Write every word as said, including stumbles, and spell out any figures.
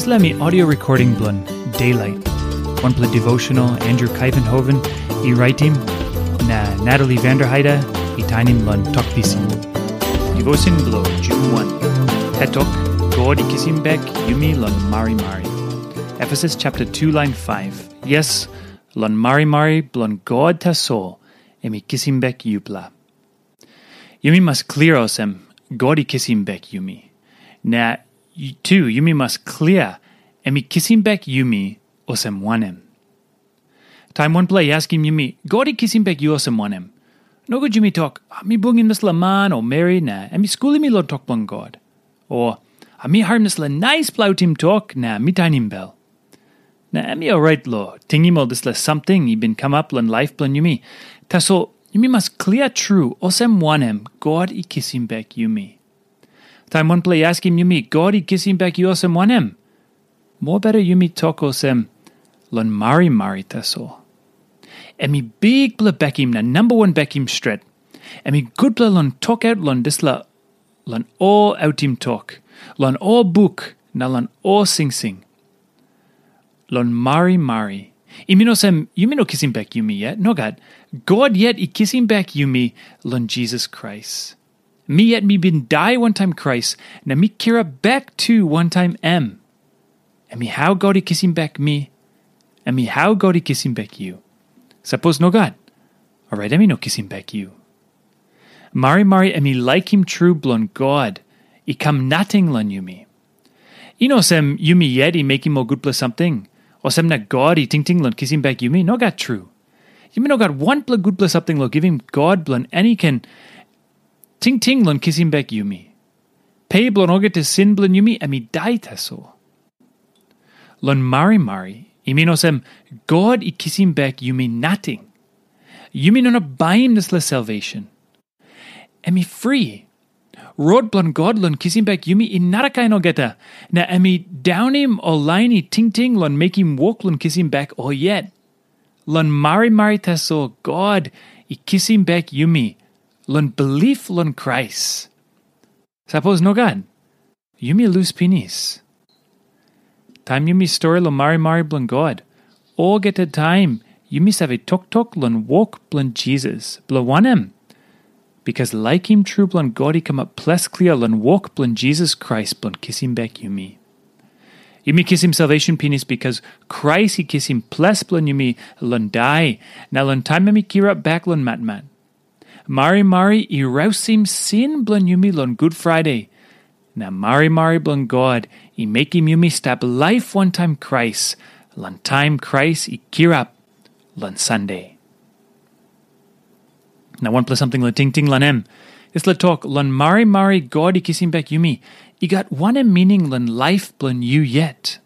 Dispela mi audio recording bilong Daylight, wanpela devotional Andrew Kaivenhoven i raitim, na Natalie Vanderheide i tainim long Tok Pisin. Devotion bilong June wan. Hetok, God i kisim bek yumi long marimari. Efesus chapter two line five. Yes, long marimari bilong God tasol em i kisim bek yupela. Yumi mas klia olsem, God i kisim bek yumi. Na tu yumi mas klia, em i kisim bek yumi olsem wanem. Taim wanpela i askim yumi, God i kisim bek yu olsem wanem? Nogut yumi tok, "Ah, mi bungim dispela man o meri na em i skulim mi long tok bilong God." O, "Ah, mi harim dispela naispela autim tok na mi tainim bel." Na em i orait long tingim ol dispela samting i bin kamap long laip bilong yumi. Tasol yumi mas klia tru olsem wanem God i kisim bek yumi. Taim wanpela i askim yumi, "God i kisim bek yu olsem wanem?" Mobeta yumi tok olsem, "Long marimari tasol." Em i bikpela bekim na namba wan bekim stret. Em i gutpela long tokaut long dispela, long ol autim tok, long ol buk na long ol singsing. Long marimari, i min olsem yumi no kisim bek yumi yet. Nogat. God yet i kisim bek yumi long Jisas Krais. Mi yet mi bin dai wantaim Krais, na mi kirap bek tu wantaim em. Em i hau God i kisim bek mi, em i hau God i kisim bek yu. Sapos nogat, orait em i no kisim bek yu. Marimari em i laikim tru bilong God i kam nating long yumi. I no olsem yumi yet i mekim ol gutpela samting, olsem na God i tingting long kisim bek yumi. Nogat tru. Yumi no gat wanpela gutpela samting long givim God bilong en i ken tingting long kisim bek yumi. Pe bilong olgeta sin bilong yumi em i dai tasol. Long marimari, i min olsem God i kisim bek yumi nating. Yumi no inap baim dispela salvation. Em i fri. Rot bilong God long kisim bek yumi i narakain olgeta, na em i daunim ol lain i tingting long mekim wok long kisim bek ol yet. Long marimari tasol God i kisim bek yumi long bilip long Krais. Sapos nogat, yumi lus pinis. Taim yumi stori long marimari bilong God, olgeta taim yumi save toktok long wok bilong Jisas. Bilong wanem? Bikas laikim tru bilong God i kamap ples klia long wok bilong Jisas Krais bilong kisim bek yumi. Yumi kisim salvation pinis bikas Krais i kisim ples bilong yumi long dai, na long taim em i kirap bek long matmat. Marimari i rausim sin bilong yumi long Gut Friday, na marimari bilong God i mekim yumi stap laip wantaim Krais long taim Krais i kirap long Sande. Na wanpela samting long tingting long em, dispela tok long marimari God i kisim bek yumi, i gat wanem mining long laip bilong yu yet?